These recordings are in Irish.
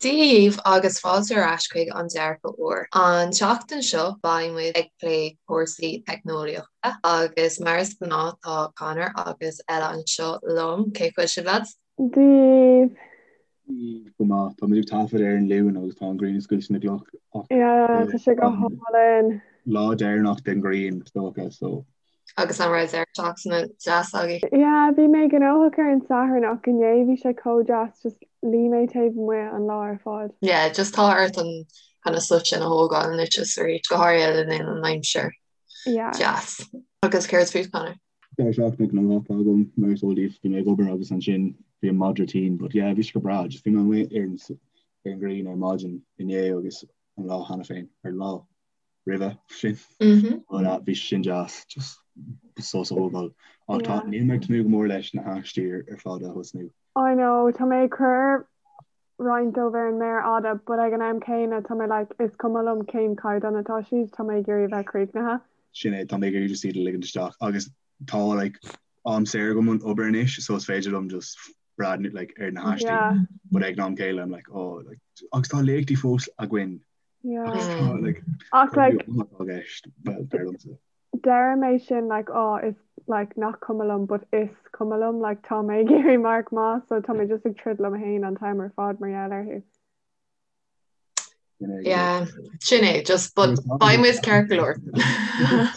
Dia dhaoibh agus fáilte ar ais chuig An Dearcadh Úr. An tseachtain seo beidh muid ag plé cúrsaí teicneolaíochta agus mar is gnáth tá Conor agus Ella anseo liom. Cén chaoi a bhfuil sibh lads? Dia dhaoibh. Go maith. Tá muid ag taifead ar an Luan agus tá an ghrian ag scoilteadh na gcloch ach Yeah, tá sé go hálainn. Lá deireanach den ghrian is dócha so. Agus an raibh deireadh seachtaine deas agaibh? Yeah, bhí mé gnóthach ar an Satharn ach inné bhí sé chomh deas, just luigh mé taobh amuigh an lá ar fad. Yeah, just tá ort an kind of sos sin a thógáil anois is arís, go háirithe le linn an aimsir Yeah. deas. Agus céard fút, Conor? Deireadh seachtaine gnóthach agam, mar is eol daoibh, bhí mé ag obair agus ansin bhí an madra tinn, but yeah, bhí sé go breá, just bhí mé amuigh ar an ar an ghrian ar maidin inné agus an lá cheana féin, ar lá. roimhe sin. But uh, bhí sin deas just sos a thógáil. Ach tá níl mé ag tnúth go mór leis na haistí ar fad a thosnú. I know, tá mé ag cur roinnt dóibh ar an méar fhada, but ag an am céanna tá mé like, is cuma liom cén caighdeán atá siad, tá mé ag iarraidh bheith críochnaithe. Sin é, tá mé ag iarraidh just iad a ligint isteach agus tá like am saor agam ón obair anois so is féidir liom just breathnú like ar na haistí. Yeah. But ag an am céanna I'm like oh like agus tá léachtaí fós againn Yeah. Like, Ach like like deir mé sin like oh is like nach cuma liom but is cuma liom like tá mé ag iarraidh marc maith so tá mé just ag troid liom féin an t-am ar fad mar gheall orthu. Yeah, sin é just but beidh muid ceart go leor.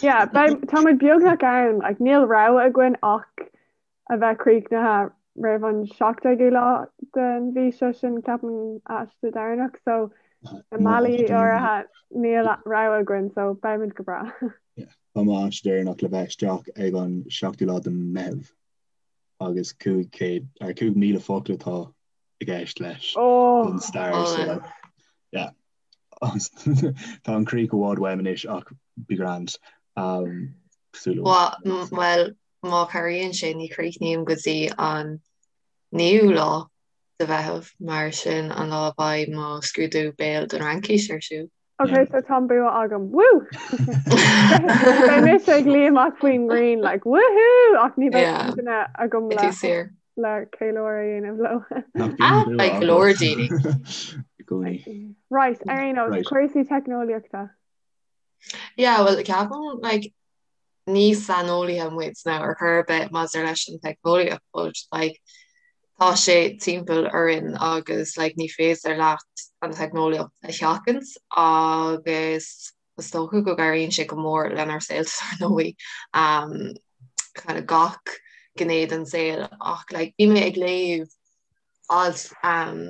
Yeah, beidh tá muid beagnach ann like níl rogha againn ach a bheith críochnaithe roimh an 17ú lá den mhí seo sin ceapaim aiste deireanach so i mbealaí áirithe níl rogha againn so beimid go breá. Tá mo aiste deireanach le bheith isteach ag an 7ú lá de Meitheamh agus 500 ar 5,000 focal atá i gceist leis don stair so like yeah tá an chríoch i bhfad uaim anois ach be grand um, Well Má chabhraíonn sé, ní chríochnaím go dtí an 9ú lá de Mheitheamh, mar sin an lá a bheidh mo scrúdú béil don Fhraincis ar siúl. Ok, so tá an bua agam. Woo! Beidh mise ag luí amach faoin ngrian, like, woohoo! Ach ní bheidh Yeah. duine agam Beidh le tú saor. le ceiliúradh a dhéanamh leo. Nach bíonn Ah, bua beidh go leor agat daoine. i gcónaí. Right, ar aon nós, Right. cúrsaí teicneolaíochta. Yeah, well, ceapaim, like, ní saineolaithe muid now ar chor ar bith maidir leis an teicneolaíocht but like tá sé timpeall orainn agus like ní féidir leat an teicneolaíocht a sheachaint agus is dócha go gcabhraíonn sé go mór lenár saolta ar ndóigh um, kind of gach gné den saol ach like bhí mé ag léamh alt um,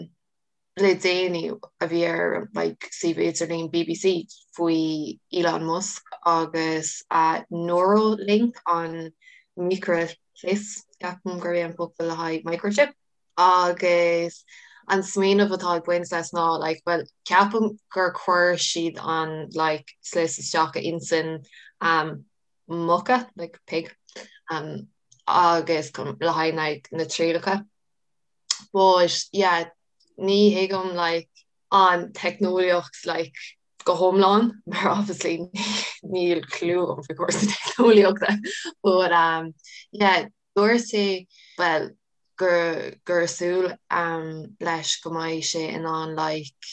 le déanaí a bhí ar like suíomh idirlín BBC faoi Elon Musk agus a Neuralink an micreashlios, ceapaim gurb é an focal le haghaidh microchip, agus an smaoineamh atá ag baint leis ná like bhuel ceapaim gur chuir siad an like slios isteach i intinn um, muca like pig um, agus le haghaidh like, na trialacha. But yeah, ní thuigim like an teicneolaíocht like go hiomlán mar obviously níl clue agam faoi chúrsaí teicneolaíochta but um yeah dúirt sé well gur gur súil um leis go mbeidh sé in ann like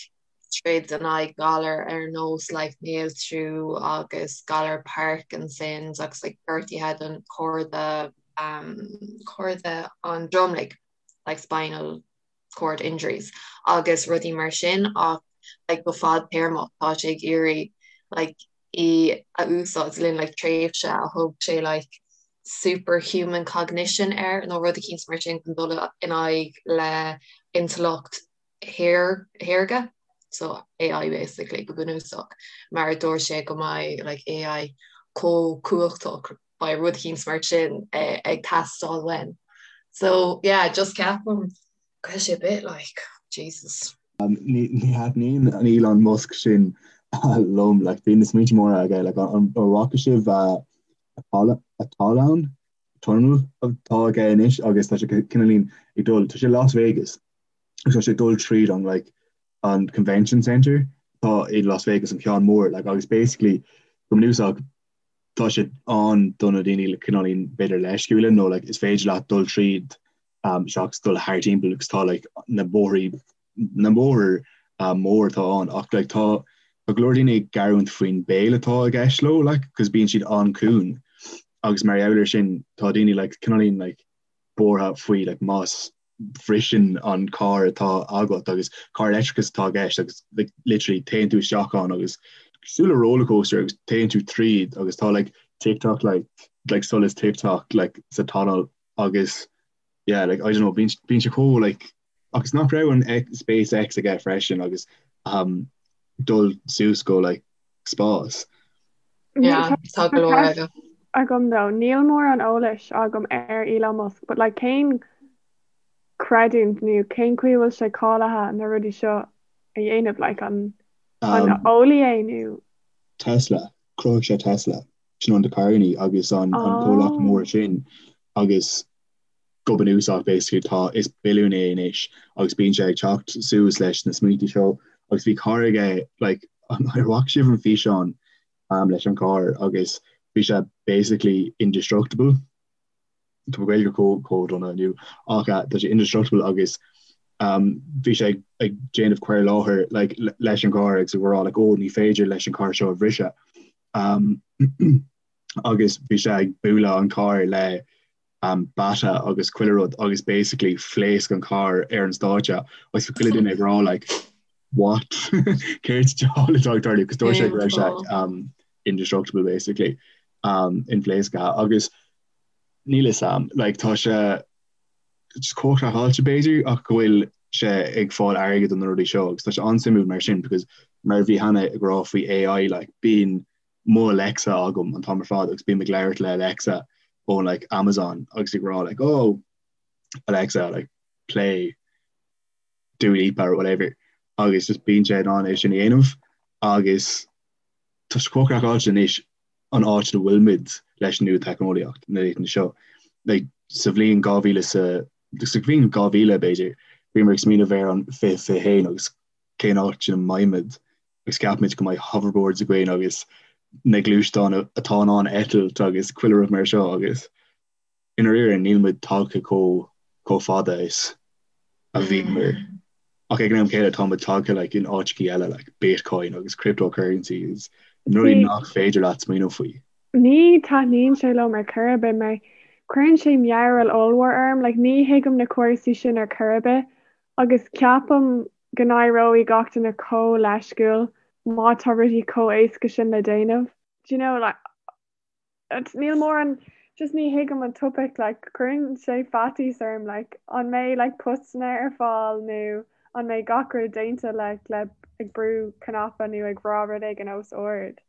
troid in aghaidh galar ar nós like néaltrú agus galar Parkinson's agus like gortuithe don chorda um chorda an dromlaigh like spinal cord injuries agus rudaí mar sin ach like go fadtéarmach tá sé ag iarraidh like í a úsáid le linn like tréimhse a thug sé like superhuman cognition air nó rud eicínt mar sin chun dul in aghaidh le intleacht shaorga so AI basically go bunúsach mar dúirt sé go mbeidh like AI chomh cumhachtach beidh rud eicínt mar sin ag teastáil uainn. So yeah, just ceapaim go bhfuil sé a bit like, Jesus. Ní thaitníonn an Elon Musk sin liom, like bíonn na smaointe móra aige, like an bhfaca sibh a tallann, tunnel atá aige anois agus tá sé cineáilín ag dul, tá sé Las Vegas agus tá sé ag dul tríd an like an convention centre atá i Las Vegas an ceann mór like agus basically go bunúsach tá sé ann do na daoine le cineáilín b'fhéidir leisciúla nó like is féidir leat dul tríd um, seachas dul thar timpeall agus tá like na bóithrí. na mbóthar mór atá ann ach like tá tá go leor daoine ag gearán faoin béal atá i gceist leo like cos bíonn siad an-chiúin agus mar gheall ar sin tá daoine like cineáilín like buartha faoi like más bhriseann an carr atá agat agus carr leictreachas atá i gceist agus like literally téann tú isteach ann agus cosúil le rollercoaster agus téann tú tríd agus tá like TikTok like like solas TikTok like sa tunnel agus yeah like I don't know bíonn bíonn sé chomh like agus nach raibh an X, SpaceX aige freisin agus um, dul suas go like spás. Yeah, tá go leor aige. agam though, níl mórán eolais agam ar Elon Musk, but like cén creidiúint nó cén chaoi a bhfuil sé cáilithe na rudaí seo a dhéanamh, like an an Um, eolaí é nó Tesla, chruthaigh sé Tesla, sin an na carrannaí agus an, an comhlacht oh. mór sin agus go bunúsach basically tá is billiún é anois agus bíonn sé ag teacht suas leis na smaointe seo agus bhí carr aige like ar bhfaca sibh an físeán um, leis an carr agus bhí sé basically indestructible Tá mo Ghaeilge chomh chomh dona inniu ach uh, tá sé indestructible agus um, bhí sé ag, ag déanamh cur i láthair like, leis an gcarr agus ag rá like, oh, ní féidir leis an carr seo a bhriseadh um, agus bhí sé ag bualadh an carr le um, bata agus chuile rud agus basically phléasc an carr ar an stáitse agus bhí chuile duine ag rá like what céard diabhal atá ag tarlú cos dúirt sé go raibh sé um, indestructible basically um, inphléasctha agus níl fhios a'm like tá sé just chomh craiceáilte b'fhéidir ach go bhfuil sé ag fáil airgead do na rudaí seo agus tá sé an-suimiúil mar sin because mar a bhí Hannah ag rá faoi AI like bíonn mo Alexa agam an t-am ar fad agus bím ag labhairt le Alexa ó like Amazon agus ag rá like oh Alexa like play Dua Lipa or whatever agus just bíonn sé in ann é sin a dhéanamh agus tá sé chomh craiceáilte anois an áit a bhfuilimid leis an nuatheicneolaíocht na laethanta seo. Like, sa bhliain 2000 sa sa bhliain 2000 b'fhéidir bhíomar ag smaoineamh ar an 2021 agus cén áit ina mbeimid agus ceapaimid go mbeidh hoverboards againn agus na gluaisteáin atá in ann eitilt agus chuile rud mar seo agus i ndáiríre níl muid tagtha chomh chomh fada is a bhíomar. Ach ag an am céanna tá muid tagtha like in áiteachaí eile like Bitcoin agus cryptocurrencies na rudaí nach féidir leat smaoineamh faoi. Ní taitníonn sé liom ar chor ar bith mar cuireann sé mearbhall ollmhór orm, like ní thuigim na cúrsaí sin ar chor ar bith Agus ceapaim go n-éireoidh gach duine chomh leisciúil má tá rudaí chomh éasca sin le déanamh. Do you know, like, níl mórán, just ní thuigim an topaic, like, cuireann sé faitíos orm, like, an mbeidh, like, postanna ar fáil nó an mbeidh gach rud déanta, like, le ag brú cnaipe nó ag rá rud éigin os ard.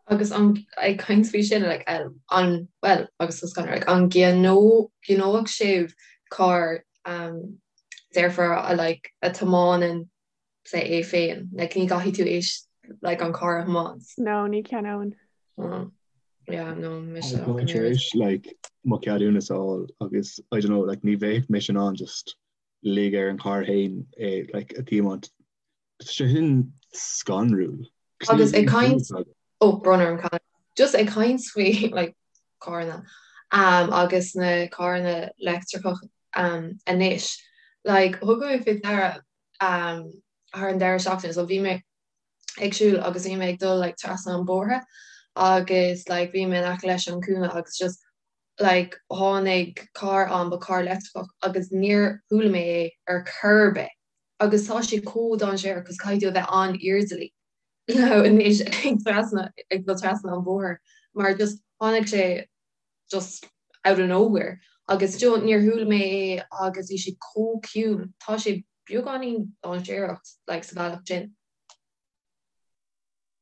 Agus an, ag caint faoi sin, like, an, well, agus tá scanradh, like, an gceannódh sibh carr um, dearfar a like a tiomáineann sé é féin, like ní gcaithfidh tú éis like an carr a thiomáint. No, ní cheannóinn. Oh. Yeah, no, mise Tá mé tar éis like mo cheadúnas a fháil agus I don't know, like ní bheadh mise in ann just lig ar an carr féin é like a thiomáint. Tá sé sin scanrúil. Agus ag caint ó brón orm Conor. Just ag caint faoi like carranna um, agus na carranna leictreacha um, anois. Like thug mé faoi deara um, thar an deireadh seachtaine so bhí mé ag siúl agus bhí mé ag dul like trasna an bóthar agus like bhí mé in aice leis an cúinne agus just like tháinig carr ann ba carr leictreach agus níor chuala mé é ar chor ar bith. Agus tá sé chomh dainséarach cos caithfidh tú a bheith an-airdeallach anois ag trasna ag dul trasna an bhóthair mar just tháinig sé just out of nowhere agus do níor chuala mé é agus bhí sé chomh ciúin. Tá sé beagáinín dainséarach like sa bhealach sin.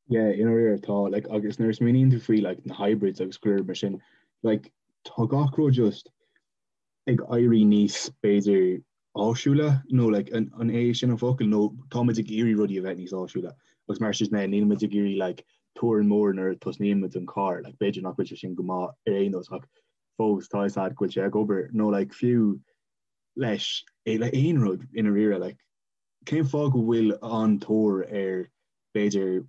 Yeah, i ndáiríre tá like agus nuair a smaoiníonn tú faoi like na hybrids agus go leor mar sin like tá gach rud just ag éirí níos, b'fhéidir, áisiúla, nó like, an é sin an focal, nó táimid ag iarraidh rudaí a bheith níos áisiúla agus mar sin de níl muid ag iarraidh like torann mór nuair a tosnaíonn muid an carr, like b'fhéidir nach bhfuil sé sin go maith ar aon nós ach fós tá fhios a'd go bhfuil sé ag obair nó like fiú leis le aon rud i ndáiríre like cén fáth go bhfuil an-tóir ar b'fhéidir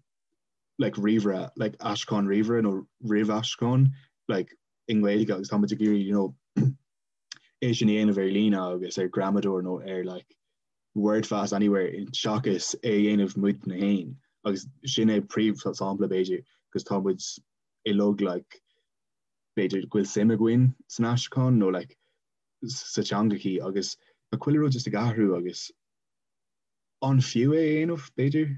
like ríomhaire like aistriúchán ríomhaire nó ríomhaistriúchán like i nGaeilge agus tá muid ag iarraidh you know é sin a dhéanamh ar líne agus ar gramadóir nó ar like Wordfast anywhere seachas é a dhéanamh muidne féin agus sin é príomh-sampla b'fhéidir 'cause tá muid uilig like b'fhéidir go bhfuil suim againn san aistriúchán nó like sa teangachaí agus tá chuile rud just ag athrú agus an fiú é a dhéanamh b'fhéidir?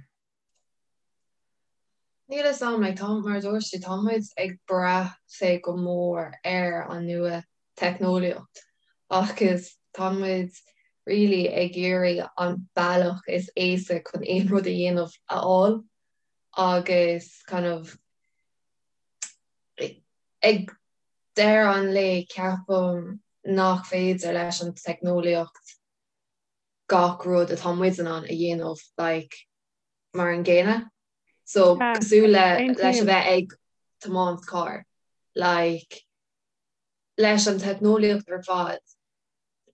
Níl a fhios agam, like, tá, mar a dúirt tú, tá muid ag brath sé go mór ar an nua teicneolaíocht agus tá muid really ag iarraidh an bealach is éasca chun aon rud a dhéanamh a fháil agus kind of ag deireadh an lae ceapaim nach féidir leis an teicneolaíocht gach rud atá muid in ann a dhéanamh like mar an gcéanna. So cosúil le leis a bheith ag tiomáint carr like leis an teicneolaíocht ar fad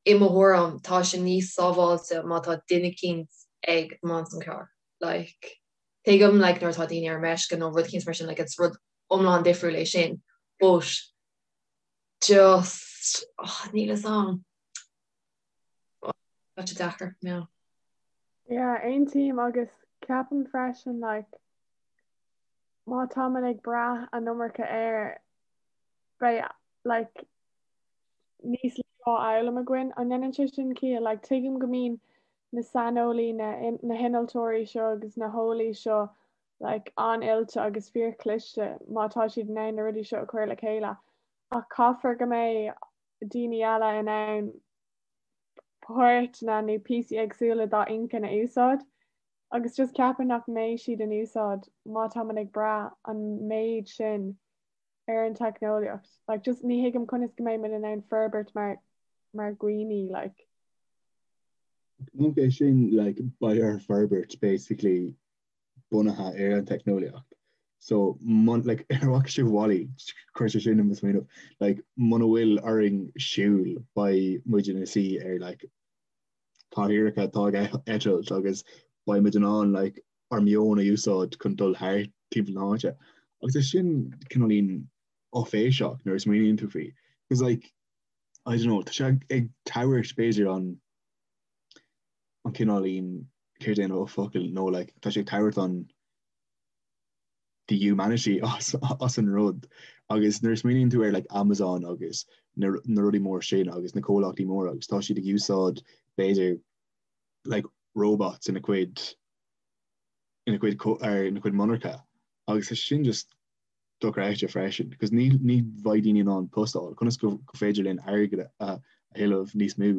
i mo thuairim tá sé níos sábháilte má tá duine eicínt ag tiomáint an carr like tuigim like nuair atá daoine ar meisce nó rud eicínt mar sin like it's rud iomlán difriúil é sin but just oh, níl a fhios agam. Tá sé deacair, yeah. Yeah, aontaím agus ceapaim freisin like má táimid ag brath an iomarca air beidh like níos lú á fhoghlaim againn. An ndéanann sé sin ciall? Like tuigim go mbíonn na saineolaí, na na hinnealtóirí seo agus na heolaí seo like an-oilte agus fíorchliste má tá siad in ann na rudaí seo a chur le chéile ach caithfear go mbeidh daoine eile in ann páirteanna nó píosaí éagsúla dá inchinn a úsáid agus just ceapaim nach mbeidh siad in úsáid má táimid ag brath an méid sin ar an teicneolaíocht. Like just ní thuigim conas go mbeidh muid in ann forbairt mar mar dhaoine like. Nach é sin like beidh ár forbairt basically bunaithe ar an teicneolaíocht. So mun, like, ar bhfaca sibh WALL-E, chuir sé sin i mo smaoineamh, like, muna bhfuil orainn siúl beidh muid ina suí ar like, cathaoireacha atá ag eitilt agus beidh muid in ann like, ár meon a úsáid chun dul thart timpeall na háite. Agus é sin cineáilín áiféiseach nuair a smaoiníonn tú faoi. Because like, I don't know, tá sé ag tabhairt b'fhéidir an an cineáilín céard é an focal nó like tá sé ag tabhairt an the humanity as as an rud agus nuair a smaoiníonn tú ar like Amazon agus na na rudaí mór sin agus na comhlachtaí móra agus tá siad ag úsáid b'fhéidir like robots ina cuid ina cuid ar ina cuid monarcha agus tá sin just dochreidte freisin because ní ní bheidh daoine in ann post a fháil conas go go féidir linn airgead a a thuilleamh níos mó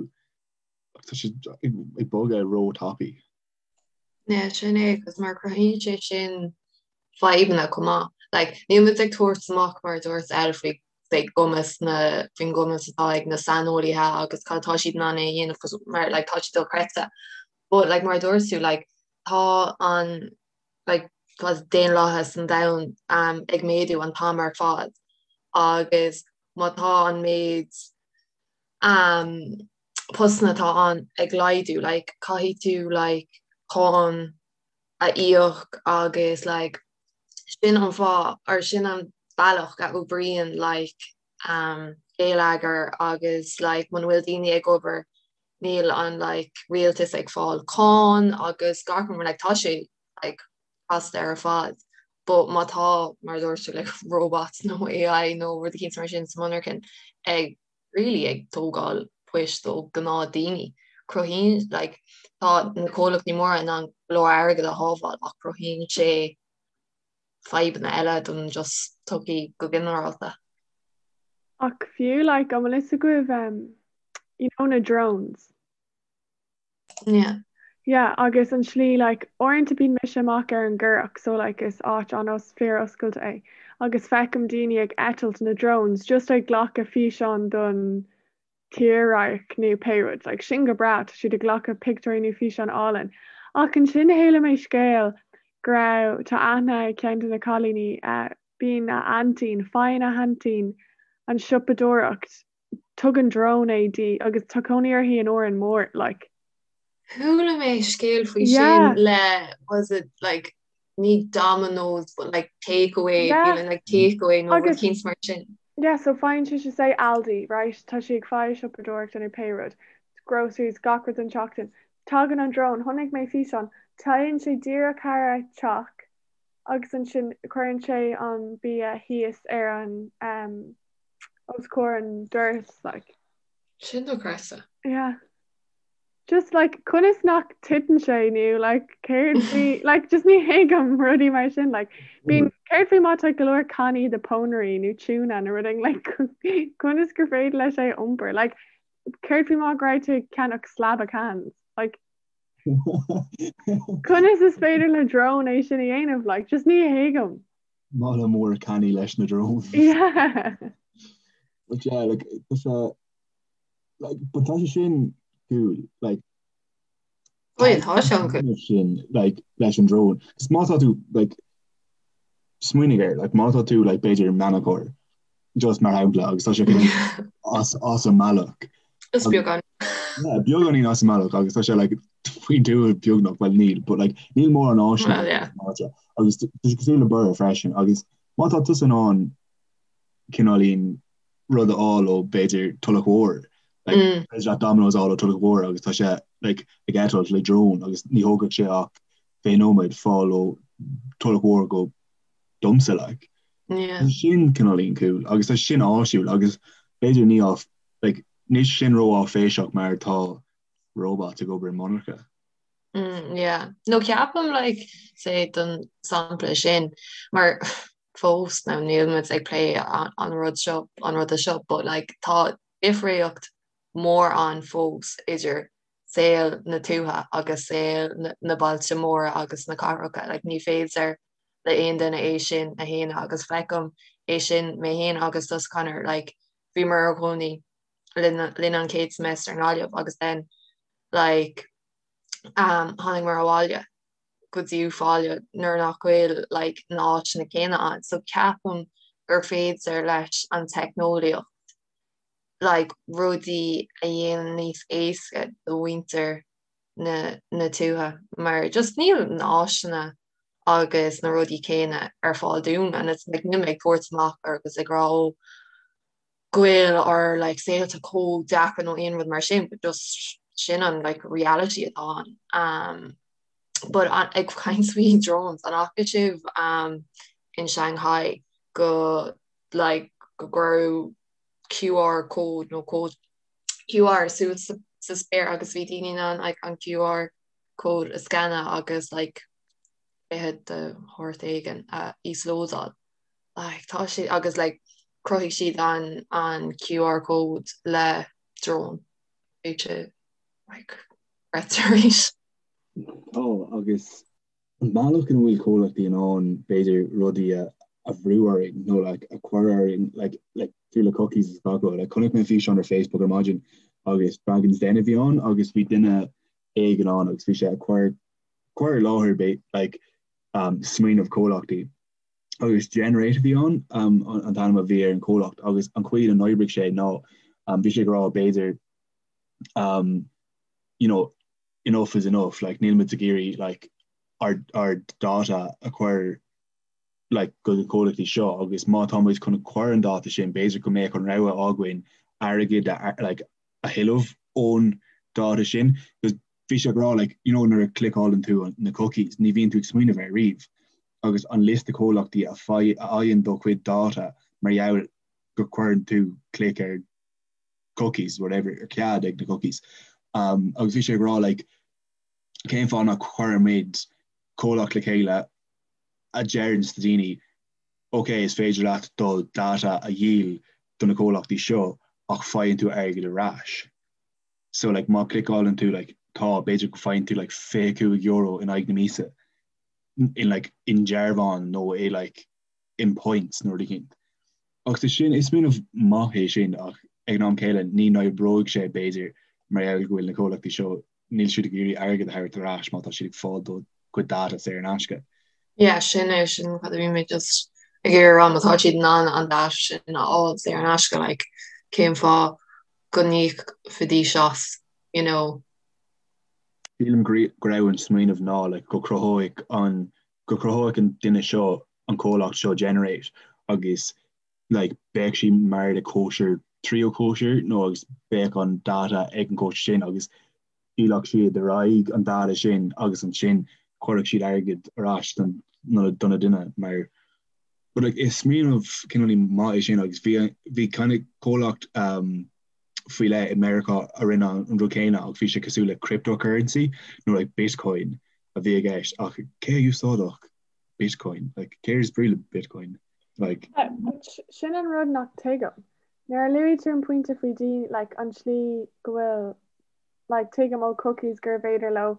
Tá sé ag bogadh ró-tapaidh. Yeah, sin é, agus mar cruthaíonn sé sin fadhbanna chomh maith. Like, níl muid ag tabhairt amach mar a dúirt Elle faoi faoi gcumas na faoin gcumas atá ag na saineolaithe agus cad atá siad in ann é a dhéanamh cos mar like tá sé dochreidte. But like mar a dúirt tú like tá an like tá daonlathas an domhain um, ag méadú an t-am ar fad agus má tá an méid um, postanna atá ann ag laghdú, like, caithfidh tú like, cáin a íoc agus like, sin an fáth or sin an bealach a oibríonn like, um, geilleagar agus like, muna bhfuil daoine ag obair níl an like, rialtas ag fáil cáin agus gach rud like, tá sé like, casta ar fad. But má tá mar a dúirt tú like, robots nó AI nó rud eicínt mar sin sa monarchan ag really ag tógáil poist ó gnáth daoine. Cruthaíonn like tá na comhlachtaí móra in ann go leor airgead a shábháil ach cruthaíonn sé fadhbanna eile don just tsochaí go ginearálta. Ach fiú like an bhfuil fhios agaibh um, you know na drones? Yeah. Yeah, agus an slí like uaireanta bíonn mise amach ar an gCurrach so like is áit an-os fíor-oscailte é agus feicim daoine ag eitilt na drones just ag glacadh físeán don tírdhreach nó pé rud like sin go breá tá siad ag glacadh pictiúirí nó físeán álainn ach ansin chuala mé scéal go raibh tá aithne ag ceann de na cailíní eh bíonn a aintín faigheann a haintín an siopadóireacht tugann drone é di agus tá cónaí uirthi in Órán Mór like. Chuala mé scéal faoi sin le was it like ní Domino's but like takeaway yeah. feeling like takeaway nó rud eicínt mar sin. Yeah, so faigheann sise say Aldi, right? Tá sí ag fáil siopadóireachta nó pé rud. Groceries gach rud don tseachtain. Tagann an drón, chonaic mé físeán, téann sé díreach thar a teach agus ansin cuireann sé an bia thíos ar an um, os comhair an doras like. Sin dochreidte. Yeah. Just like conas nach titeann sé nó like céard faoi like just ní thuigim rudaí mar sin like bíonn céard faoi má tá go leor cannaí de pónairí nó tuna nó rud éigin like conas gur féidir leis é a iompar like céard faoi má go raibh tú ag ceannach slab of cans like conas is féidir le drone é sin a dhéanamh like just ní thuigim. Mála mór cannaí leis na drones. Yeah. But yeah, like, tá sé like, but tá sé sin cool, like, Oh yeah, tá sé an-cool. sin, like, leis an drone. 'Cause má tá tú, like, smaoinigh air, like, má tá tú, like, b'fhéidir meanacóir, just mar shampla, agus tá sé kind as, as an mbealach. Is beagán. Yeah, beagáinín as an mbealach agus tá sé like, faoin dtuath beagnach, well níl, but like, níl mórán áiseanna Well, yeah. áite. Agus tá sé cosúil le Borough freisin, agus má tá tusa in ann cineáilín rud a fháil ó b'fhéidir Tulach Mhór, like, mm. féidir leat Domino's a fháil ó Tulach Mhór agus tá sé like, ag eitilt le drone agus ní thógfadh sé ach 20 nóiméad fáil ó Tulach Mhór go domsa like. Yeah. Tá sin cineáilín cool agus tá sin áisiúil agus b'fhéidir ní á like, níl sin ró-áiféiseach mar tá robots ag obair i monarcha. Mm, yeah. No ceapaim like, say don sampla sin mar fós now níl muid ag plé an rud seo an ruda seo but like tá difríocht mór ann fós idir saol na tuaithe agus saol na bailte móra agus na cathracha like ní féidir le aon duine é sin a shéanadh agus feicim é sin mé féin agus tusa Conor like bhíomar inár gcónaí linn linn an chéad semester i nGaillimh agus then like um tháinig muid abhaile go dtí Uíbh Fhailí nuair nach bhfuil like na háiteanna céanna ann. So ceapaim gur féidir leis an teicneolaíocht like rudaí a dhéanamh níos éasca do mhuintir na na tuaithe mar just níl na áiseanna agus na rudaí céanna ar fáil dúinn and it's like níl mé ag tabhairt amach agus ag rá ó go bhfuil ár like saolta chomh deacair nó aon rud mar sin but just sin an like reality atá ann. Um, but an, ag caint faoi drones an fhaca sibh um, in Shanghai go like go gcuireadh QR code nó cód QR suas sa, sa spéir agus bhí daoine in ann like, an QR code a scanadh agus like cluiche de shórt éigin a íoslódáil. Like tá sé agus like chruthaigh siad an an QR code le drone. Bhí sé like dochreidte arís. Tá agus an bealach ina bhfuil comhlachtaí in ann b'fhéidir rudaí a a bhrú orainn nó like a chur orainn like like fiú le cookies is gach rud. Like chonaic mé físeán ar Facebook ar maidin agus Dragon's Den a bhí ann agus bhí duine éigin ann agus bhí sé ag cur cur i láthair b'fhéidir like um smaoineamh comhlachtaí. agus Generate a bhí ann an t-ainm a bhí ar an chomhlacht agus an chaoi ina n-oibrigh sé ná bhí sé ag rá b'fhéidir you know enough is enough like níl muid ag iarraidh like ár ár data a chur like go na comhlachtaí seo agus má tá muid chun cur an data sin b'fhéidir go mbeadh an rogha againn airgead a like a thuilleamh ón data sin because bhí sé ag rá like you know nuair a cliceálann tú na cookies ní bhíonn tú ag smaoineamh air riamh agus an liosta comhlachtaí a fhaigheann do chuid data mar gheall go gcuireann tú clic ar cookies, whatever, ar cead ag na cookies. Um, agus bhí sé ag rá like, cén fáth nach gcuirimid comhlacht le chéile a deireann do daoine ok, is féidir leat do data a dhíol do na comhlachtaí seo ach faigheann tú airgead ar ais. So like, má cliceálann tú like, tá b'fhéidir go faigheann tú like, €25 in aghaidh na míosa. in like i ndearbhán nó i like in points nó rud éicint. Ach tá sin, is smaoineamh maith é sin ach ag an am céile ní n-oibreoidh sé b'fhéidir mar gheall go bhfuil na comhlachtaí seo, níl siad ag iarraidh airgead a thabhairt ar ais má tá siad ag fáil do chuid data saor in aisce. Yeah, sin é, sin cad a bhí mé just ag iarraidh a rá, má tá siad in ann an data sin a fháil saor in aisce, like cén fáth go n-íocfaidís as, you know? Sílim go raibh an smaoineamh ná like go cruthóidh an go cruthóidh an duine seo an comhlacht seo Generate agus like beidh sí mar le cóisir tríú cóisir nó agus beidh an data ag an cóisir sin agus. Dhíolfadh siad ar aghaidh an data sin agus ansin chuirfeadh siad airgead ar ais don do na duine mar but like is smaoineamh cineál maith é sin agus bhí bhí kind of comhlacht um, faoi leith i Meiriceá a rinne an rud céanna ach bhí sé cosúil le cryptocurrency nó like bitcoin a bhí i gceist ach cé a úsáidfeadh bitcoin like céard is brí le bitcoin like Sin an rud nach tuigim. Nuair a luaigh tú an pointe faoi daoine like an tslí go bhfuil like tuigim ó cookies gurbh fhéidir leo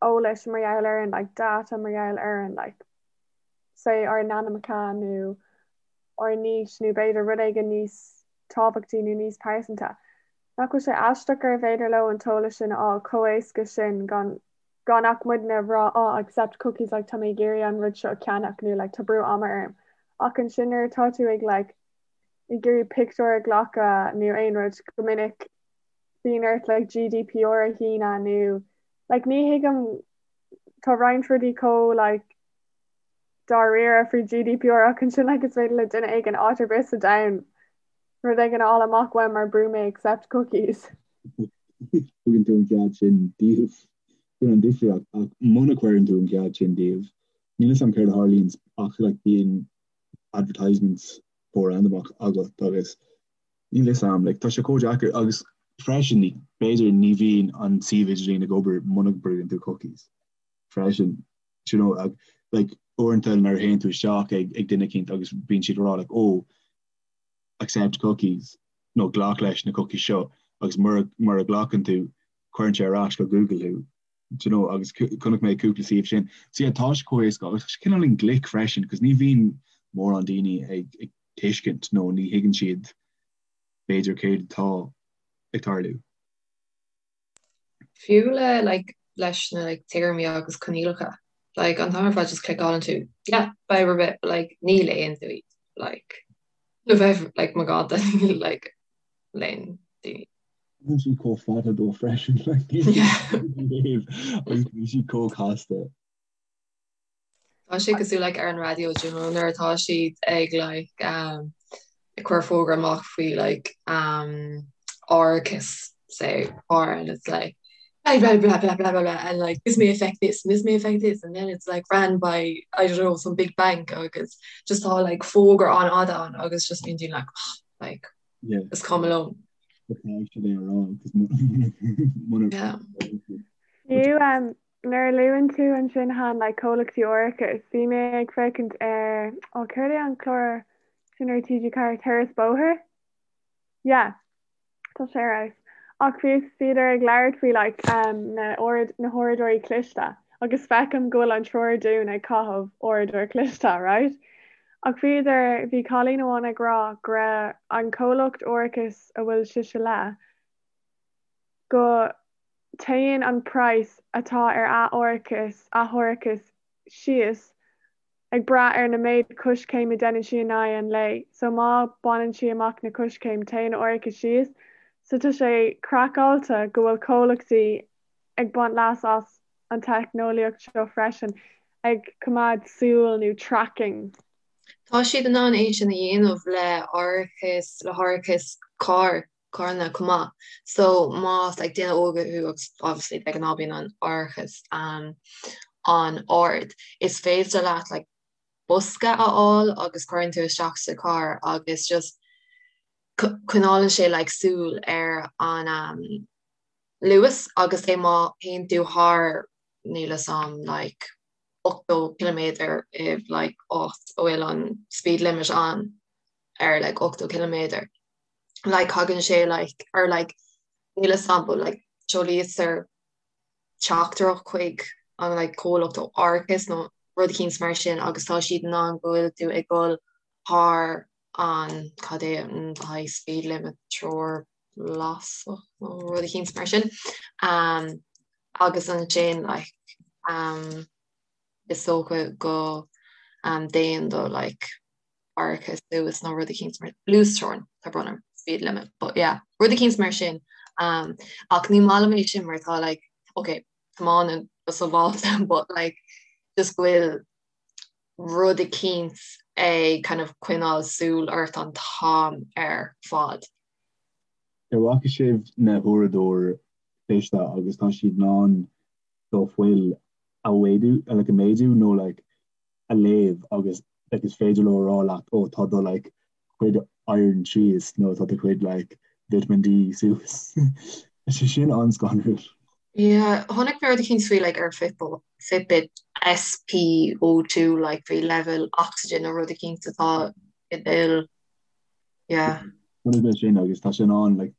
eolais mar gheall orainn like data mar gheall orainn like say ár n-ainmneacha nó ár n-aois nó b'fhéidir rud éigin níos tábhachtaí nó níos pearsanta. Nach bhfuil sé aisteach gurbh fhéidir leo an t-eolas sin a fháil chomh éasca sin gan gan ach muidne a rá oh accept cookies like tá mé ag iarraidh an rud seo a cheannach nó like tá brú ama orm. Ach ansin nuair atá tú ag like ag iarraidh pictiúr a ghlacadh nó aon rud go minic bíonn ort like GDPR a shíneadh nó like ní thuigim tá roinnt rudaí chomh like dáiríre faoi GDPR ach ansin like is féidir le duine éigin áit ar bith sa domhan rud éigin a fháil amach uaim mar brú mé accept cookies. Tugann tú an cead sin díobh. Sin an difríocht ach muna cuireann tú an cead sin díobh, níl a fhios agam céard a tharlaíonn ach like bíonn advertisements chomh randamach agat agus níl fhios a'm, like tá sé chomh deacair agus freisin b'fhéidir ní bhíonn an suíomh idirlín ag obair muna brúann tú cookies freisin, do you know, like uaireanta nuair a théann tú isteach ag ag duine eicínt agus bíonn siad ag rá like oh accept cookies nó glac leis na cookies seo agus mura mura nglacann tú cuireann sé ar ais go Google thú do you know, agus chonaic mé cúpla suíomh sin. So yeah, tá sé chomh éasca agus tá sé cineáilín glic freisin, cos ní bhíonn mórán daoine ag, ag tuiscint nó ní thuigeann siad b'fhéidir céard atá ag tarlú. Fiú le like leis na like téarmaí agus coinníollacha, like an t-am ar fad just cliceálann tú yeah, fadhb ar bith, but like ní léann tú iad, like le bheith like magánta like léann daoine. Bíonn siad chomh fada dó freisin agus bíonn siad chomh casta. Tá sé cosúil like ar an raidió do you know nuair atá siad ag like um, ag cur fógra amach faoi like um, árachas say car and it's like blah blah blah blah blah blah blah and like this may affect this and this may affect this and then it's like ran by I don't know some big bank agus just tá like fógra an-fhada ann agus just bíonn daoine like oh, like Is cuma liom. Fiú nuair a luann tú ansin Han like comhlachtaí árachais, bhí mé ag féachaint ar, ó céard é an clár sin ar TG4, Turas Bóthair? Yeah, tá sé ar fheabhas. Ach bhí bhíodar ag labhairt faoi like na na huaireadóirí cliste agus feicim go bhfuil an triúr dúinn ag caitheamh uaireadóir cliste, right? Ach bhíodar, bhí cailín amháin ag rá go raibh an comhlacht árachais a bhfuil sise le, go téann an praghas atá ar a árachas, a hárachas síos ag brath ar na méid coiscéim a deineann sí in aghaidh an lae. So má baineann sí amach na coiscéim, téann a árachas síos. So tá sé craiceáilte go bhfuil comhlachtaí ag baint leas as an teicneolaíocht seo freisin, ag coimeád súil nó tracking. Tá siad in ann é sin a dhéanamh le árachas, le hárachas carr, carranna chomh maith. So más like duine óg thú agus obviously de ghnáth bíonn an árachas um, an-ard, is féidir leat like bosca a fháil agus cuireann tú isteach sa carr agus just coinneálann sé like súil ar an um, luas agus é má théann tú thar níl 'fhios a'm like 80 ciliméadar i like áit a bhfuil an speed limit ann ar like 80 ciliméadar like thagann sé like or like níl 'fhios a'm but like seolaítear teachtaireacht chuig an like comhlacht árachais nó rud eicínt mar sin agus tá siad in ann go bhfuil tú ag dul thar an cad é an high speed limit treoir lasach nó rud eicínt mar sin agus ansin like is dócha go dtéann do like árachas suas nó rud eicínt mar luasteorainn tá brón orm speed limit but yeah rud eicínt mar sin ach ní maith liom é sin mar tá like ok tiomáineann go sábháilte but like just go bhfuil rud eicínt ag kind of coinneáil súil ort an t-am ar fad. Ar bhfaca sibh na huaireadóir? cliste agus tá siad in ann do fuil a mhéadú like a méadú nó like a léamh agus like is féidir leo a rá leat ó tá do like cuid iron síos nó tá do chuid like vitamin D suas. Tá sé sin an-scanrúil. Yeah, chonaic mé rud eicínt faoi like ar Fitbit SPO2 like faoi leibhéal oxygen nó rud eicínt atá i d'fhuil. Yeah. Chonaic mé sin agus tá sé in ann like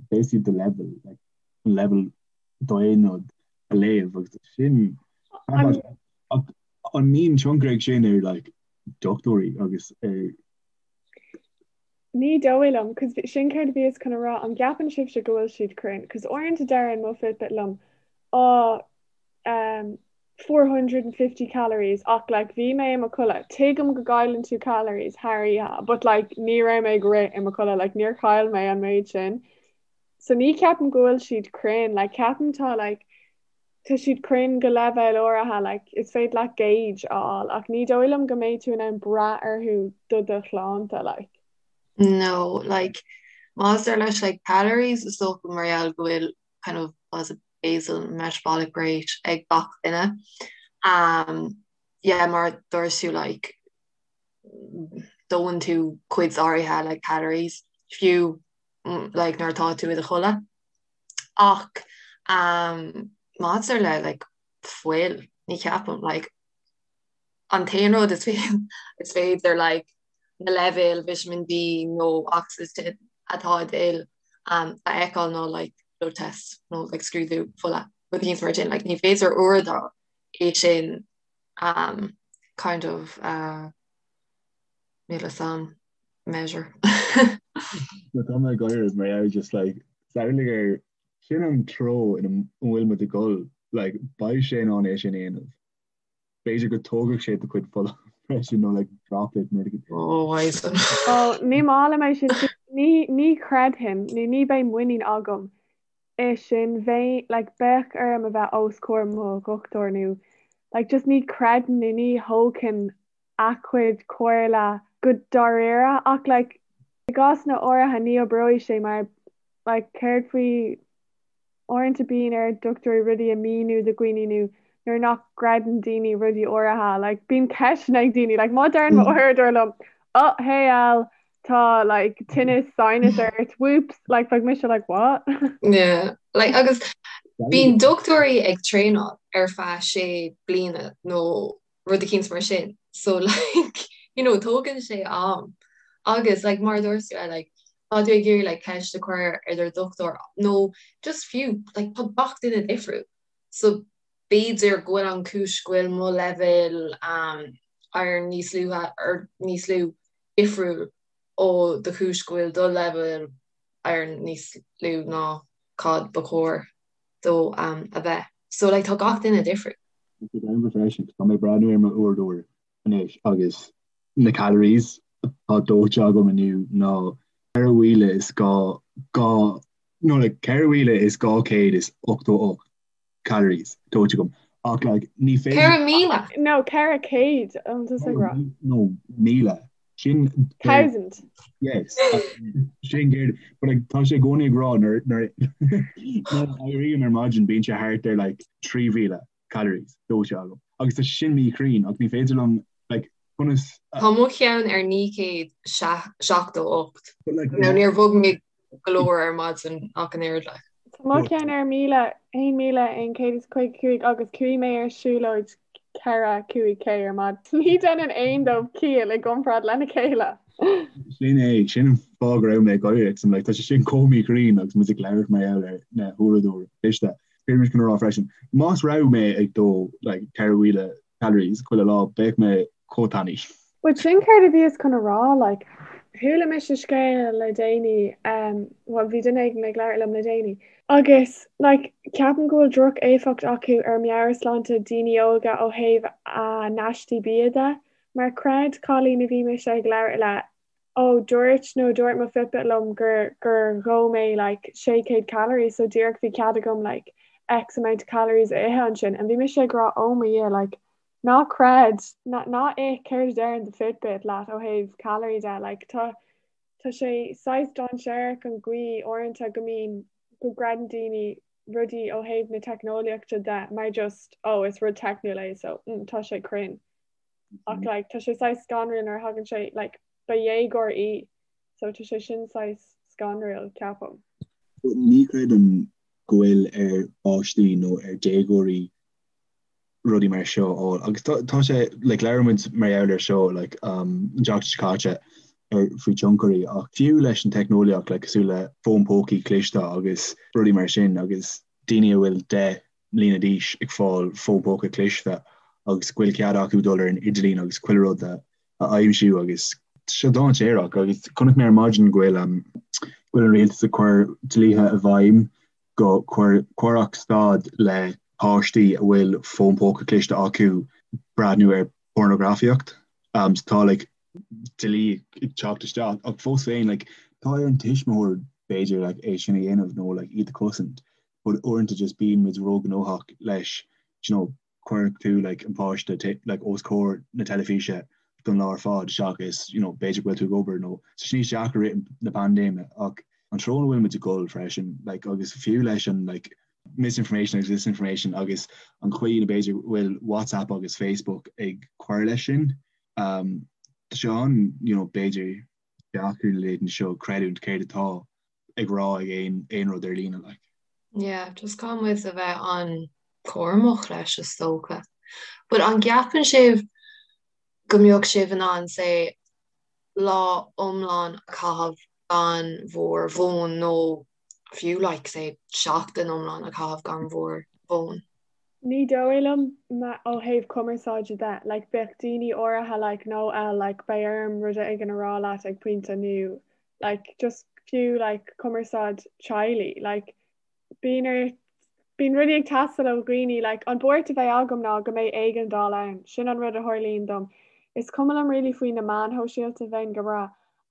basically do level like an level d'aon rud a léamh agus sin ach an mbíonn tionchar ag sin ar like dochtúirí agus ar Ní dóigh liom, cos sin céard a bhíos chun a rá, an gceapann sibhse go bhfuil siad cruinn? Cos uaireanta deireann mo Fitbit liom, oh, um, 450 calories ach like bhí mé i mo chodladh, tuigim go gcailleann tú calories thar oíche but like ní raibh mé ag rith i mo chodladh, like níor chaill mé an méid sin. So ní cheapaim go bhfuil siad cruinn, like ceapaim tá like tá siad cruinn go leibhéal áirithe, like is féidir leat gauge a fháil ach ní dóigh liom go mbeidh tú in ann brath orthu do do shláinte, like. No, like maidir leis like calories is dócha mar gheall go bhfuil kind of was it basal metabolic rate ag gach duine. Um, yeah, mar a dúirt tú like dóann tú cuid áirithe like calories fiú like nuair atá tú i do chodladh. Ach um, maidir le like fuil, ní cheapaim like an t-aon rud is is féidir like na leibhéil vitamin D nó ocsaigin atá i d'fhuil um, a fheiceáil nó like blood test nó like scrúdú fola rud éicint mar sin like ní féidir uaireadóir é sin um, kind of uh, níl a fhios a'm measure. Tá mé ag gáire mar gheall just like samhlaigh ar sin an treo ina bhfuil muid ag dul like beidh sé in ann é sin a dhéanamh. B'fhéidir go dtógfadh sé do chuid fola freisin nó like droplet nó rud Oh, why is that? Oh, ní maith liom é sin. Ní ní chreidfinn nó ní bheidh muinín agam i sin. Bheidh like bheadh orm a bheith os comhair mo dhochtúir nó like just ní chreidfinn nó ní thógfainn a chuid comhairle go dáiríre ach like i gcásanna áirithe ní oibreoidh sé mar like céard faoi uaireanta bíonn ar dochtúirí rudaí a míniú do dhaoine nó nuair nach gcreideann daoine rudaí áirithe like bíonn ceisteanna ag daoine like má deireann mo uaireadóir liom oh hey El tá like tinneas sinus ort whoops like bheadh mise like what? Yeah like agus bíonn dochtúirí ag traenáil ar feadh sé bliana nó rud eicínt mar sin so like you know tógann sé am agus like mar a dúirt tú like tá tú ag iarraidh like ceist a chur ar do dhochtúir nó just fiú like tá gach duine difriúil so b'fhéidir go bhfuil an chúis go bhfuil mo leibhéal um, iron níos luaithe or níos lú difriúil ó do chúis go bhfuil do leibhéal iron níos lú ná cad ba chóir dó um, a bheith. So like tá gach duine difriúil. Tá sé freisin, tá mé ag breathnú ar mo uaireadóir anois agus na calories atá dóite agam inniu ná 4,000 is 2 nó like 4,288 calories dóite agam ach like ní féidir 4,000? No, 400 an tusa ag rá. No, 1,000. Sin Thousand. Yes. Sin céard but like tá sé i gcónaí ag rá nuair nuair nuair a éirím ar maidin bíonn sé thart ar like 3,000 calories dóite agam. Agus tá sin míchruinn ach ní féidir liom like conas Tá mo cheann ar 978. But like Nó níor bhog mé go leor ar maidin ach an oiread like. Tá mo cheann ar 1,000, 1,155 agus chuaigh mé ar siúlóid 4, 5K ar maidin. Ní dhéanann aon dóibh ciall i gcomparáid lena chéile. Sin é, sin an fáth go raibh mé ag gáire, 'cause I'm like, tá sé sin chomh míchruinn agus muid ag labhairt mar gheall ar na huaireadóirí cliste. Bhí mé chun a rá freisin, más raibh mé ag dó like 4,000 calories chuile lá, bheadh mé chomh tanaí. But sin céard a bhíos chun a rá, like, chuala mise scéal le déanaí, um, well bhí duine éigin ag labhairt liom le déanaí, agus like, ceapaim go bhfuil droch-éifeacht acu ar meabhairshláinte daoine óga ó thaobh a n-aistí bia de, mar chreid cailín a bhí mise ag labhairt le, ó dúirt nó dúirt mo Fitbit liom gur gur dhó mé like 600 calories so díreach bhí cead agam like X amount of calories a ithe ansin and bhí mise ag rá oh mo Dhia like ná creid ná ná ith céard a deireann do Fitbit leat ó thaobh calorie de like tá tá sé saghas dainséarach an gcaoi uaireanta go mbíonn go gcreideann daoine. rudaí ó thaobh na teicneolaíochta de mar just oh is rud teicniúil é so mm, tá sé cruinn. Ach mm-hmm. like, tá sé saghas scanrúil nuair a thagann sé like, ba dhéagóir í so tá sé sin saghas scanrúil ceapaim. Ní chreidim go bhfuil ar pháistí nó ar déagóirí rudaí mar seo a fháil. Agus tá sé, like, labhair muid mar gheall ar seo, like, um, an tseachtain seo caite ar faoi tionchairí ach fiú leis an teicneolaíocht, like, cosúil le fón pócaí cliste agus rudaí mar sin agus daoine a bhfuil 10 mbliana d'aois ag fáil fón póca cliste agus go bhfuil cead acu dul ar an idirlíon agus chuile rud a a aimsiú agus tá sé dainséarach agus chonaic mé ar maidin go bhfuil um, go bhfuil an rialtas ag cur dlíthe i bhfeidhm go gcuirfeadh stad le páistí a bhfuil fón póca cliste acu breathnú ar pornagrafaíocht. Um, so tá like, dlí ag teacht isteach ach fós féin like, tá ar an tuismitheoir b'fhéidir like, é sin a dhéanamh nó like, iad a chosaint. But uaireanta just bíonn muid róghnóthach leis you know, cuireann tú like an páiste like os comhair na teilifíse don lá ar fad seachas you know b'fhéidir go bhfuil tú ag obair nó tá sé níos deacra i rith na paindéime ach an treo ina bhfuil muid ag dul freisin like agus fiú leis an like misinformation agus disinformation agus an chaoi ina b'fhéidir bhfuil WhatsApp agus Facebook ag cur leis sin um, tá sé an you know b'fhéidir deacair na laethanta seo creidiúint céard atá ag rá ag aon aon rud ar líne like. Yeah, just caithfidh muid a bheith an-chúramach leis is dócha. But an gceapann sibh go mbeadh sibh in ann say lá iomlán a chaitheamh gan bhur bhfón nó fiú like say seachtain iomlán a chaitheamh gan bhur bhfón? Ní dóigh liom ó thaobh cumarsáide de, like bheadh daoine áirithe like no eh like beidh orm rud éigin a rá leat ag pointe nó like just fiú like cumarsáid teaghlaigh like bíonn ar bíonn rudaí ag teastáil ó dhaoine like an buairt a bheidh agam ná go mbeidh éigeandáil ann sin an rud a tharlaíonn dom is cuma liom really faoi na meáin shóisialta bheinn go breá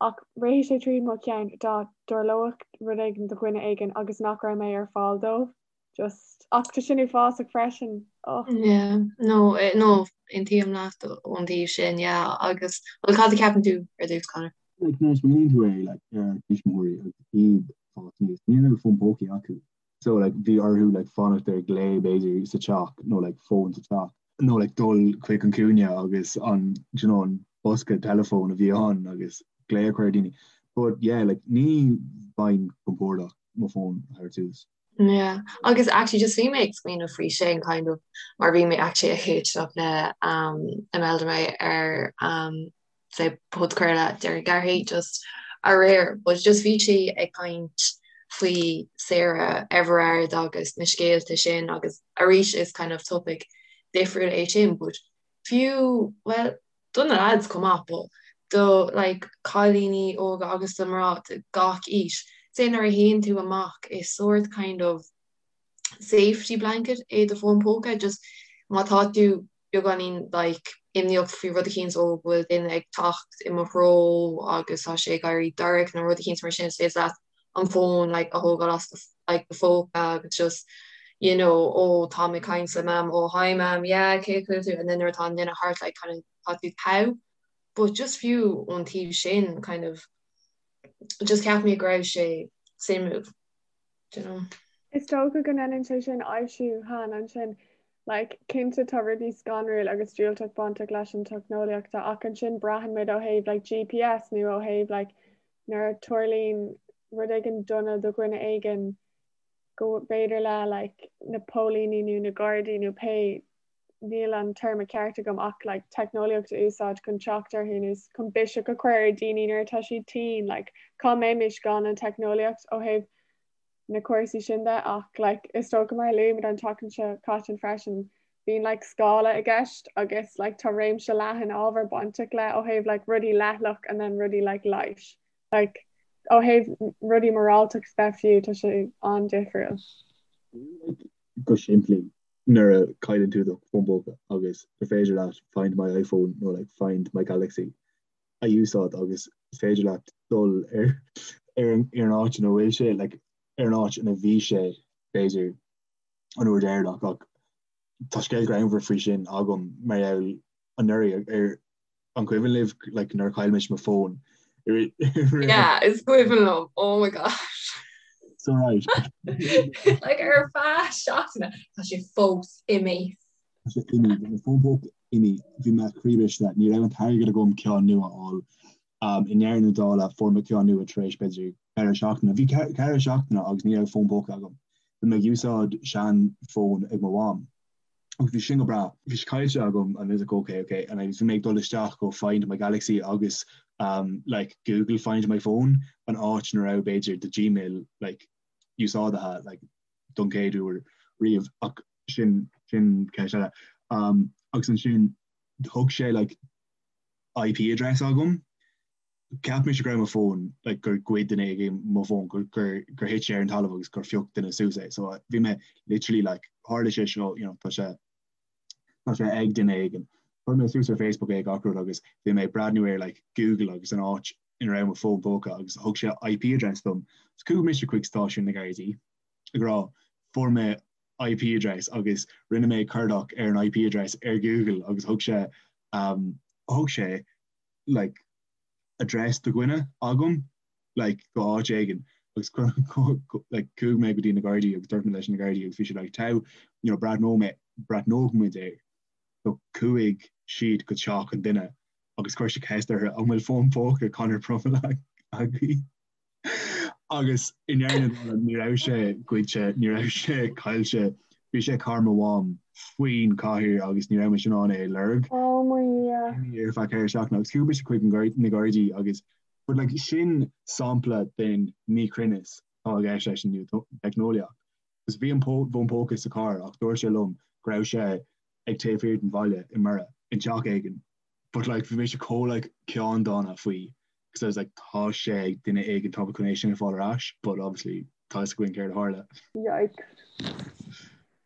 ach rithfidh sé tríd mo cheann dá dtarlódh rud éigin do dhuine éigin agus nach raibh mé ar fáil dóibh Just, ach tá sin uafásach freisin. Oh. Yeah, no, eh, no, aontaím leat ón taobh sin, yeah, agus, well, cad a ceapann tú ar dtús, Conor? Like, nuair a smaoiníonn tú air, like, ar ár dtuismitheoirí agus iad ag fás aníos, ní raibh fón pócaí acu. So, like, bhí orthu, like, fanacht ar glao, b'fhéidir, sa teach, nó, like, fón sa teach, nó, like, dul chuig an cúinne agus an, do you know, an bosca teileafóin a bhí ann agus glao a chur ar daoine. But, yeah, like, ní bheinn compordach mo fón a thabhairt suas. Yeah, agus actually just bhí mé ag smaoineamh faoi sin kind of mar bhí mé actually ag éisteacht le um, Imelda May ar um, say podchraoladh Doireann Garrihy just aréir, but just bhí sí ag caint faoi Sarah Everard agus na scéalta sin agus arís is kind of topic difriúil é sin, but fiú well do na lads chomh maith but do like cailíní óga agus do mná de gach aois, say nuair a théann tú amach is sórt kind of safety blanket é do fón póca just má tá tú beagáinín like imníoch faoi rud eicínt ó go bhfuil duine ag teacht i mo threo agus tá sé ag éirí dorcha nó rud eicínt mar sin is féidir leat an fón like a thógáil as do like do phóca agus just you know ó tá mé ag caint le mam ó hi mam yeah cén chaoi a bhfuil tú and then nuair atá an duine thart like kind of tá tú togha but just fiú ón taobh sin kind of just cheap mé go raibh sé suimiúil do you know. Is dócha go ndéanann sé sin aibhsiú Han ansin like cinnte tá rudaí scanrúil agus diúltach bainteach leis an teicneolaíocht ach ansin braitheann muid ó thaobh like GPS nó ó thaobh like nuair a tarlaíonn rud éigin dona do dhuine éigin go mb'fhéidir le like na póilíní nó na gardaí nó pé níl an téarma ceart agam ach like teicneolaíocht a úsáid chun teacht orthu nó chun biseach a chur ar daoine nuair atá siad tinn like cá mbeimis gan an teicneolaíocht ó thaobh na cúrsaí sin de ach like is dócha mar a luaigh muid an tseachtain seo caite freisin bíonn like scála i gceist agus like tá réimse leathan ábhar bainteach le ó thaobh like rudaí leithleach and then rudaí like leighis like ó thaobh rudaí moráltacht de fiú tá sé an-difriúil. Go simplí nuair a chailleann tú do fón póca agus gur féidir leat find my iPhone nó like find my Galaxy a úsáid agus is féidir leat dul ar ar an ar an áit ina bhfuil sé like ar an áit ina bhí sé b'fhéidir an uair dheireanach ach tá scéal greannmhar faoi sin agam mar gheall anuraidh ar an cuimhin libh like nuair a chaill mise mo fón Yeah, is cuimhin liom. Oh my gosh. So right. Like ar feadh seachtaine tá sé fós imithe. Tá sé imithe, bhí mo fón póca imithe, bhí mé croíbhriste, ní raibh an t-airgead agam ceann nua a fháil. Um, i ndeireadh na dála fuair mé ceann nua tar éis b'fhéidir 4 seachtaine. Bhí 4 seachtaine agus ní raibh fón póca agam. Bhí mé ag úsáid sean-fhón ag mo mham. Agus bhí sin go breá. Bhí sé caillte agam and I was like okay, okay and I bhí mé ag dul isteach go Find My Galaxy agus um, like Google Find My Phone an áit ina raibh b'fhéidir do Gmail like úsáidthe like don chéad uair riamh ach sin sin ceist eile. Um, agus ansin thug sé like IP address agam Cheap mise go raibh mo fón, like gur ghoid duine éigin mo fón, gur gur gur thit sé ar an talamh agus gur phioc duine suas é. So bhí mé literally like tharla sé seo, you know, tá sé tá sé ag duine éigin. Chuir mé suas ar Facebook é gach rud agus bhí mé ag breathnú ar like Google agus an áit ina raibh mo fón póca agus thug sé IP address dom. So chuaigh mise chuig stáisiún na Gardaí ag rá fuair mé IP address agus rinne mé cuardach ar an IP address ar Google agus thug sé um, thug sé like address do dhuine agam like go áit éigin agus like chuaigh mé go dtí na Gardaí agus dúirt mé leis na Gardaí agus bhí siad like tá you know breathnóidh mé breathnóidh muid air so chuaigh siad go teach an duine agus chuir siad ceist orthu an bhfuil fón póca Conor Brummel agaibh Agus i ndeireadh na dála ní raibh sé goidte, ní raibh sé caillte, bhí sé i carr mo mham faoin chathaoir agus ní raibh mise in ann é a lorg. Oh mo Dhia. Ar feadh 4 seachtaine agus chuaigh mise chuig na Gardaí agus but like sin sampla den míchruinneas atá i gceist leis an nua-theicneolaíocht. Agus bhí an fón póca sa charr ach dúirt sé liom go raibh sé ag taobh thiar den bhaile i mBiorra, i dteach éigin. But like bhí mise chomh like ceanndána faoi because I was like tá sé ag duine éigin tá mé chun é sin a fháil ar ais but obviously tá fhios againn céard a tharla. Yikes.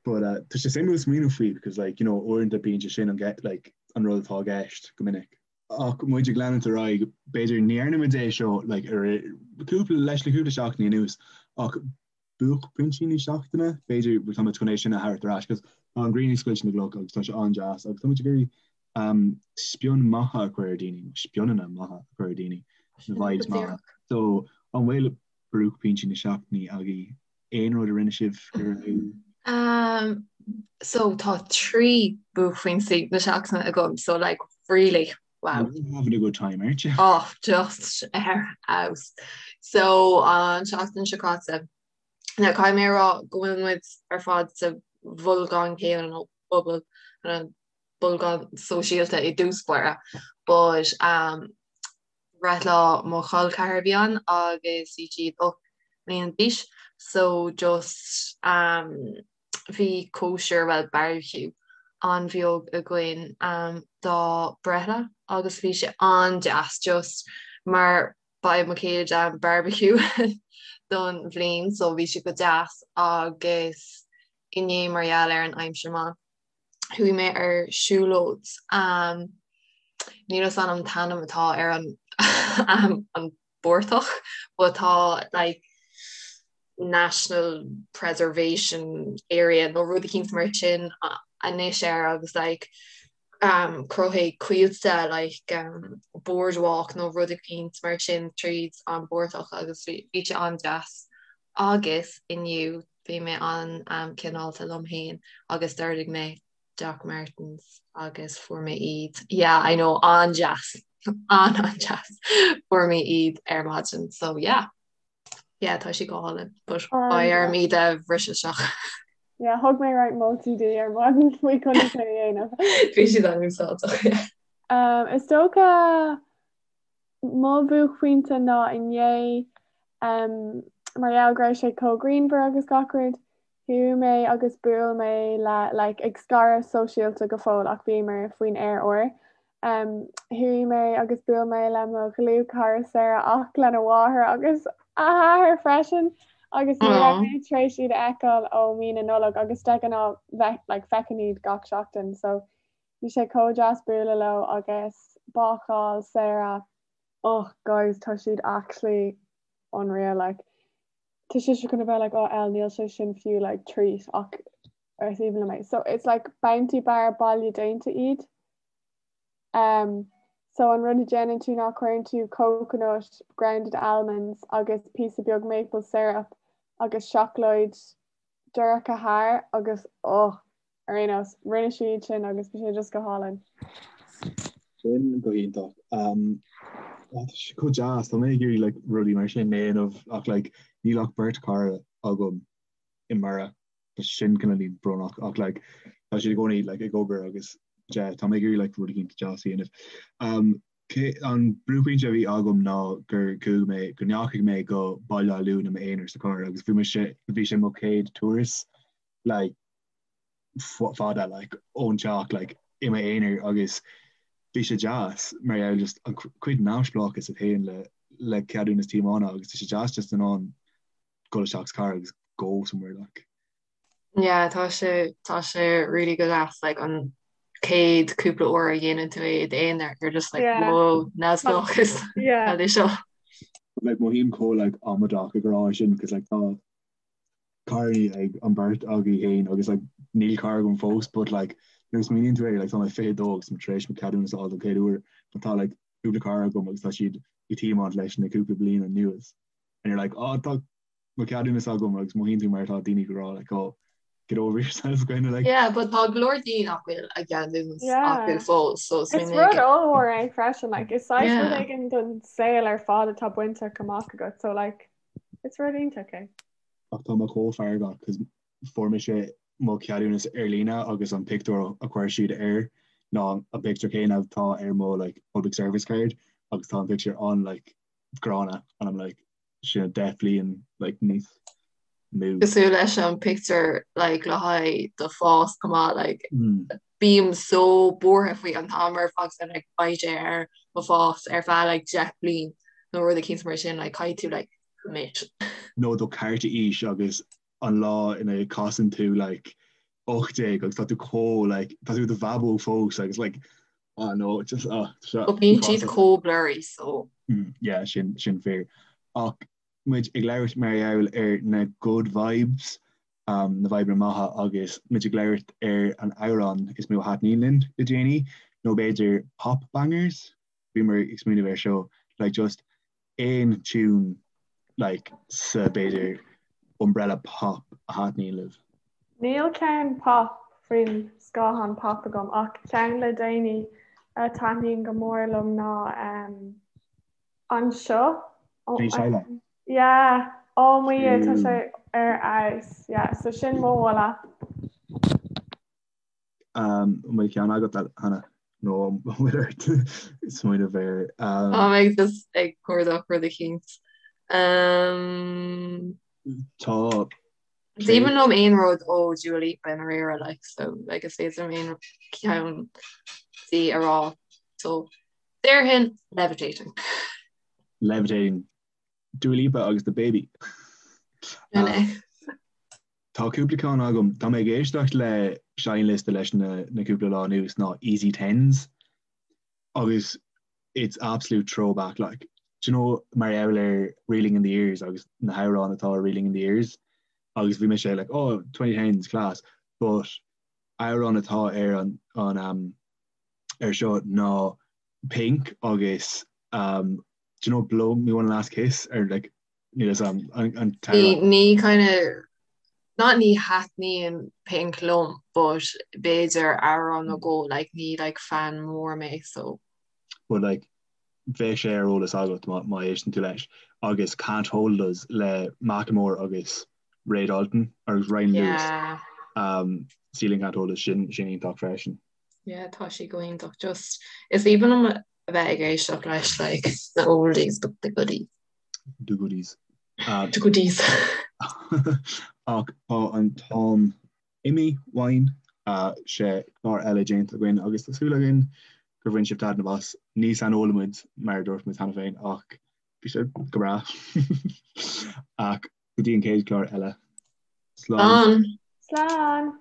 But uh, tá sé suimiúil smaoineamh faoi because like you know uaireanta bíonn sé sin an get like an rud atá i gceist go minic. Ach muid ag leanúint ar aghaidh b'fhéidir ní dhearna muid é seo like ar cúpla leis le cúpla seachtaine anuas ach buaicphointí na seachtaine, b'fhéidir tá muid chun é sin a thabhairt ar ais cos tá an ghrian ag scoilteadh na gcloch agus tá sé an-deas agus tá muid ag iarraidh um, spion maith a chur ar daoine, nó spionanna maithe a chur ar daoine, na vibes maithe. So an bhfuil buaicphointí na seachtaine agaibh aon rud a rinne sibh go raibh Um, so tá 3 buaicphointí na seachtaine agam, so like really wow. You're having a good time, aren't you? Oh, just ar fheabhas. So an seachtain seo caite, now caithfidh mé a rá go bhfuil muid ar fad sa bholgán céanna nó bubble an bolgán sóisialta i dtús báire, but um, breithlá mo chol ceathar a bhí ann agus bhí siad 8 mbliana d'aois so just um, bhí cóisir, bhuel barbecue, an-bheag againn dá breithlá agus bhí sé an-deas just mar ba é mo chéad barbecue don bhliain so bhí sé go deas agus inné mar gheall ar an aimsir maith chuaigh mé ar siúlóid níl a fhios agam an t-ainm atá ar an an bportach but tá like national preservation area nó rud eicínt mar sin anois air agus like um, cruthaigh coillte like um, boardwalk nó rud eicínt mar sin tríd an bportach agus bhí sé an-deas. Agus inniu bhí mé an-cineálta liom féin agus d'ordaigh mé Doc Martens agus fuair mé iad, yeah I know, an-deas, an-an-deas, fuair mé iad ar maidin so yeah, yeah tá sé go hálainn but beidh orm iad a bhriseadh isteach. Yeah, thug mé roinnt moltaí di ar maidin faoi conas é a dhéanamh. Bhí siad an-úsáideach, yeah. Um, is dócha Mo bhuaicphointe ná inné, mar gheall go raibh sé chomh grianmhar agus gach rud, chuaigh mé agus bhuail mé le, like, ag scaradh sóisialta go fóill ach bhíomar faoin aer úr. Chuaigh mé agus bhuail mé le mo dhlúthchara Sarah ach lena mháthair agus a hathair freisin agus ní raibh mé tar éis iad a fheiceáil ó mí na Nollag agus de ghnáth bheith, like, feicim iad gach seachtain so Bhí sé chomh deas bualadh leo agus bácáil Sarah oh guys tá siad actually unreal like tá sibhse chun a bheith like oh El níl sé sin fiú like treat ach is aoibhinn liom é. So it's like bounty bar baile déanta iad. Um, so an rud a déanann tú ná cuireann tú coconut, grounded almonds agus píosa beag maple syrup. agus seacláid dorcha thiar agus oh ar aon nós rinne sí iad sin agus bhí sé just go hálainn. Sin go hiontach. Um, tá sé chomh deas, tá mé ag iarraidh like, rudaí mar sin a dhéanamh ach like, níl ach beirt cara agam i mBiorra. Tá sin cineál brónach ach like, tá siad i gcónaí like, ag obair agus yeah, tá mé ag iarraidh like, rud éicint deas a dhéanamh. Um, cé, an buaicphointe a bhí agam ná gur chuaigh mé, go ndeachaigh mé go Baile Átha Luain i m'aonar sa charr agus bhí mise, bhí sé mo chéad turas like, fada like, ón teach like, i m'aonar agus bhí sé deas mar gheall just an cuid neamhspleáchas a théann le le ceadúnas tiomána agus tá sé deas just in ann dul isteach sa charr agus go somewhere like. Yeah, tá sé tá sé really go deas like an chéad cúpla uair a dhéanann tú é i d'aonar you're just like Yeah. whoa neamhspleáchas Yeah. cad é seo. Like mothaím chomh like amaideach ag rá sin cos like tá carrannaí ag an beirt agaibh féin agus like níl carr agam fós but like nuair a smaoiníonn tú air like tá mé 22 agus tá mé tar éis mo ceadúnas a fháil don chéad uair but tá like cúpla carr agam agus tá siad ag tiomáint leis na cúpla bliain anuas and you're like oh tá mo ceadúnas agam agus mothaíonn tú mar atá daoine ag rá like oh get over yourself kind of like Yeah, but tá go leor daoine nach bhfuil a gceadúnas Yeah. acu fós so Is rud ollmhór é freisin like is saghas rud Yeah. éigin don saol ar fad atá bainte amach agat so like Is rud iontach é. Ach tá mé chomh feargach cos fuair mise mo cheadúnas ar líne agus an pictiúr a chuir siad air ná an pictiúr céanna atá ar mo like public service card agus tá an pictiúr an like gránna and I'm like sin 10 bliain like níos mó. Cosúil leis an pictiúr like le haghaidh do phas chomh maith like bím so buartha faoi an t-am ar fad and like beidh sé ar mo phas ar feadh like 10 bliain nó rud eicínt mar sin like caithfidh tú like commit. Nó do cárta aois agus an lá ina casann tú like 18 agus tá tú chomh like tá tú i do bhabóg fós agus like ah no just ah seo But bíonn siad chomh blurry so. Mm, yeah sin sin fíor. Ach muid ag labhairt mar gheall ar na good vibes na vibeanna maithe agus muid ag labhairt ar an amhrán is mó a thaitníonn linn le déanaí, nó b'fhéidir pop bangers, bhíomar ag smaoineamh air seo, like just aon tune like sa b'fhéidir umbrella pop a thaitníonn libh. Níl ceann pop faoin scáthán pop agam ach ceann le déanaí a taitníonn go mór liom ná Anseo. Bhí sé le. Yeah, oh mo Dhia, tá sé ar fheabhas. Yeah, so sin mo mholadh. An bhfuil ceann agat, Hannah? Nó an bhfuil ort smaoineamh air? Tá mé just ag cuardach rud eicínt. Tá. Is aoibhinn liom aon rud ó Dua Lipa i ndáiríre, like, so like is féidir liom aon cheann di a rá. So déarfainn Levitating. Levitating. Dua Lipa agus DaBaby. Sin é. Tá cúpla ceann agam. Tá mé ag éisteacht le seinnliosta leis na na cúpla lá anuas ná Easy Tens agus it's absolute throwback like. Do you know mar gheall ar Reeling in the Years agus na hamhráin atá ar Reeling in the Years agus bhí mise like oh 2010s class but amhrán atá ar an an um, ar seo ná Pink agus um, do you know Blow Me One Last Kiss or like níl 'fhios a'm an an Ní ní kind of not ní thaitníonn Pink liom but b'fhéidir amhrán nó dhó like ní like fan mór mé so. But like bheadh sé ar eolas agat má má éisteann tú leis agus Can't Hold Us le Macklemore agus Ray Dalton agus Ryan Lewis Yeah. um, Ceiling Can't Hold Us sin sin iontach freisin. Yeah tá sí go hiontach just is aoibhinn liom a bheith ag éisteacht leis like the oldies but the goodies. The goodies. The goodies. Ach tá an t-am imithe uainn sé chlár eile déanta againn agus tá súil againn gur bhain sibh taitneamh as. Ní saineolaithe muid mar a dúirt muid cheana féin ach bhí sé go breá. Ach go dtí an chéad chlár eile. Slán. Slán.